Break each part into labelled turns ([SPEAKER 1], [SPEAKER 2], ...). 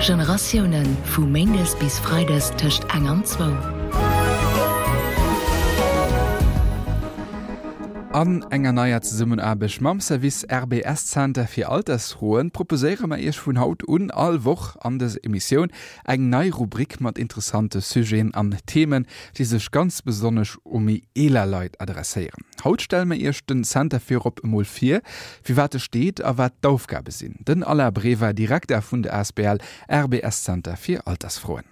[SPEAKER 1] Generatiounen, vu méindes bis freides tëscht eng an zwou.
[SPEAKER 2] An enger neier Zesummenaarbecht mam Service RBS Zenter fir Altersfroen proposéiere mer Iech vun haut un all Woch an dëser Emissioun eng nei Rubrik mat interessante Sujeten an Themen, déi sech ganz besonnesch u méi eeler Leit adresséieren. Haut stelle mer Iech den Center virop emol vir, fir wat e steet a wat d'Aufgabe sinn. Den Alain Brever, Direkter vun der asbl RBS Center fir Altersfroen.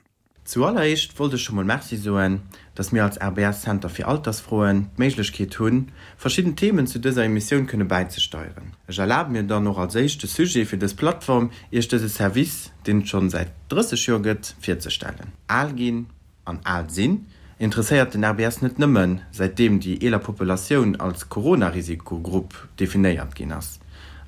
[SPEAKER 3] Zualleréischt wollt ech scho mol Merci soen, dass mir als RBS Center fir Altersfroen d'Méiglechkeet hunn, verschidden Themen zu dëser Emissioun kënne bäizesteieren. Ech erlabe mir dann och als éischte Sujet fir dës Plattform, Iech dëse Service, deen et schonn säit 30 Joer gëtt, virzestellen. Al ginn an al sinn interesséiert den RBS net nëmmen, säitdeem déi eeler Populatioun als Corona-Risikogrupp definéiert ginn ass.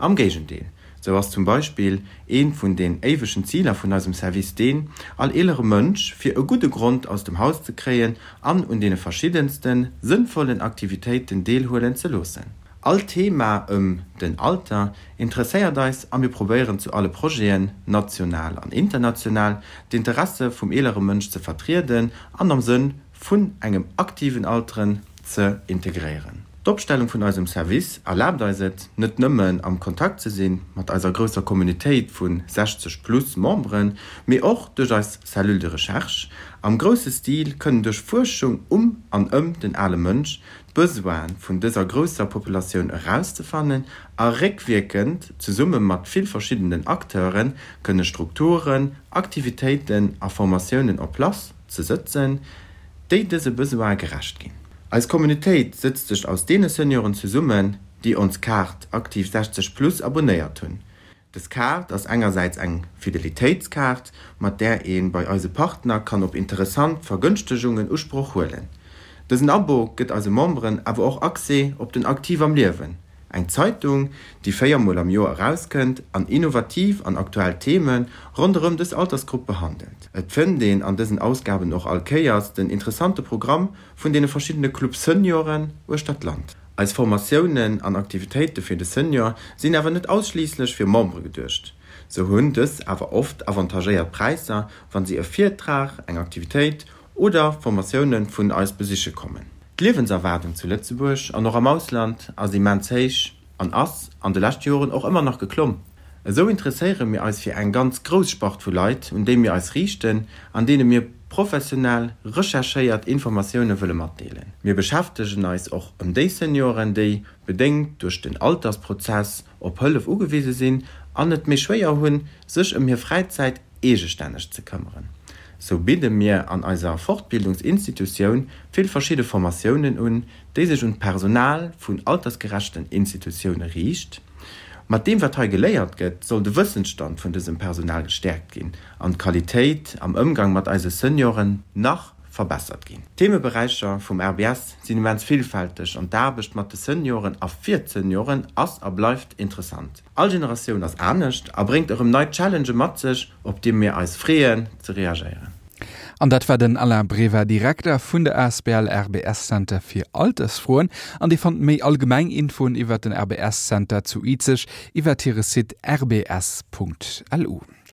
[SPEAKER 3] Am Géigendeel, sou ass zum Beispill eent vun den éiwegen Ziler vun eisem Service deen, all eelere Mënsch fir e gudde Grond aus dem Haus ze kréien an un deene verschiddenste sënnvollen Aktivitéiten deelhuelen ze loossen. All Thema ëm den Alter interesséiert eis a mir probéieren zu alle Projeten, national an international, d'Interesse vum eelere Mënsch ze vertrieden an am Sënn vun engem aktiven Alteren ze integréieren. D'Opstellung vun eisem Service erlaabt eis et, net nëmmen am Kontakt ze si mat eiser grousser Communautéit vu 60 plus Memberen, mee och duerch eis Cellule de recherche am grousse Stil kënnen duerch Fuerschung um an ëm den ale Mënsch d'Besoine vun dëser grousser Populatioun erauszefannen a réckwierkend zesumme mat vill verschiddenen Acteure kënne Strukturen, Aktivitéiten a Formatiounen en place ze sëtzen, déi dëse Besoine gerecht ginn. Eis Communautéit sëtzt sech aus deene Senioren zesummen, déi ons Kaart Aktiv 60 plus abonnéiert hunn. Dës Kaart ass engersäits eng Fidelitéitskaart, mat där ee bei eise Partner kann op interessant Vergënschtegungen Usproch huelen. Dësen Abo gëtt eise Memberen awer och Accès op den Aktiv am Liewen, eng Zeitung, déi 4 mol am Joer erauskënnt an innovativ an aktuell Theme ronderëm dës Altersgrupp behandelt. Et fënnt een an dësen Ausgaben och all Kéiers den interessante Programm vun deene verschiddene Club Senioren uechter d'Land. Eis Formatiounen an Aktivitéite fir de Senior sinn awer net ausschliisslech fir Membere geduecht. Sou hunn dës awer oft avantagéiert Präisser, wann si e Virtrag, eng Aktivitéit oder Formatioune vun eis besiche kommen. D'Liewenserwaardung zu Lëtzebuerg an och am Ausland ass immens héich an ass an de leschte Joren och ëmmer nach geklomm. Esou interesséiere mir eis fir eng ganz grouss Spart vu Leit, un déi mir eis riichten an deene mir professionell recherchéiert Informatioune wëlle matdeelen. Mir beschäftegen eis och ëm déi Senioren, déi, bedéngt duerch den Altersprozess, op Hëllef ugewise sinn an et méi schwéier hunn, sech ëm hir Fräizäit eegestänneg ze këmmeren. Sou bidde mir an eiser Fortbildungsinstitutioun vill verschidde Formatiounen un, déi sech un d'Personal vun altersgerechten Institutioune riicht. Mat deem wat hei geléiert gëtt, soll de Wëssensstand vun dësem Personal gestäerkt ginn an d'Qualitéit am Ëmgang mat eise Senioren nach verbessert ginn. D'Themeberäicher vum RBS sinn immens villfälteg an d'Aarbecht mat de Senioren a fir d'Senioren ass a bleift interessant. All Generatioun ass anescht a bréngt erëm nei Challengë mat sech, op déi mir eis freeën ze reagéieren.
[SPEAKER 2] An dat war den Alain Breva, Direkter vun der asbl RBS Center fir Altersfroen. An Dir fannt méi allgemeng Infoen iwwert den RBS Center zu Izeg iwwert hire Site rbs.lu.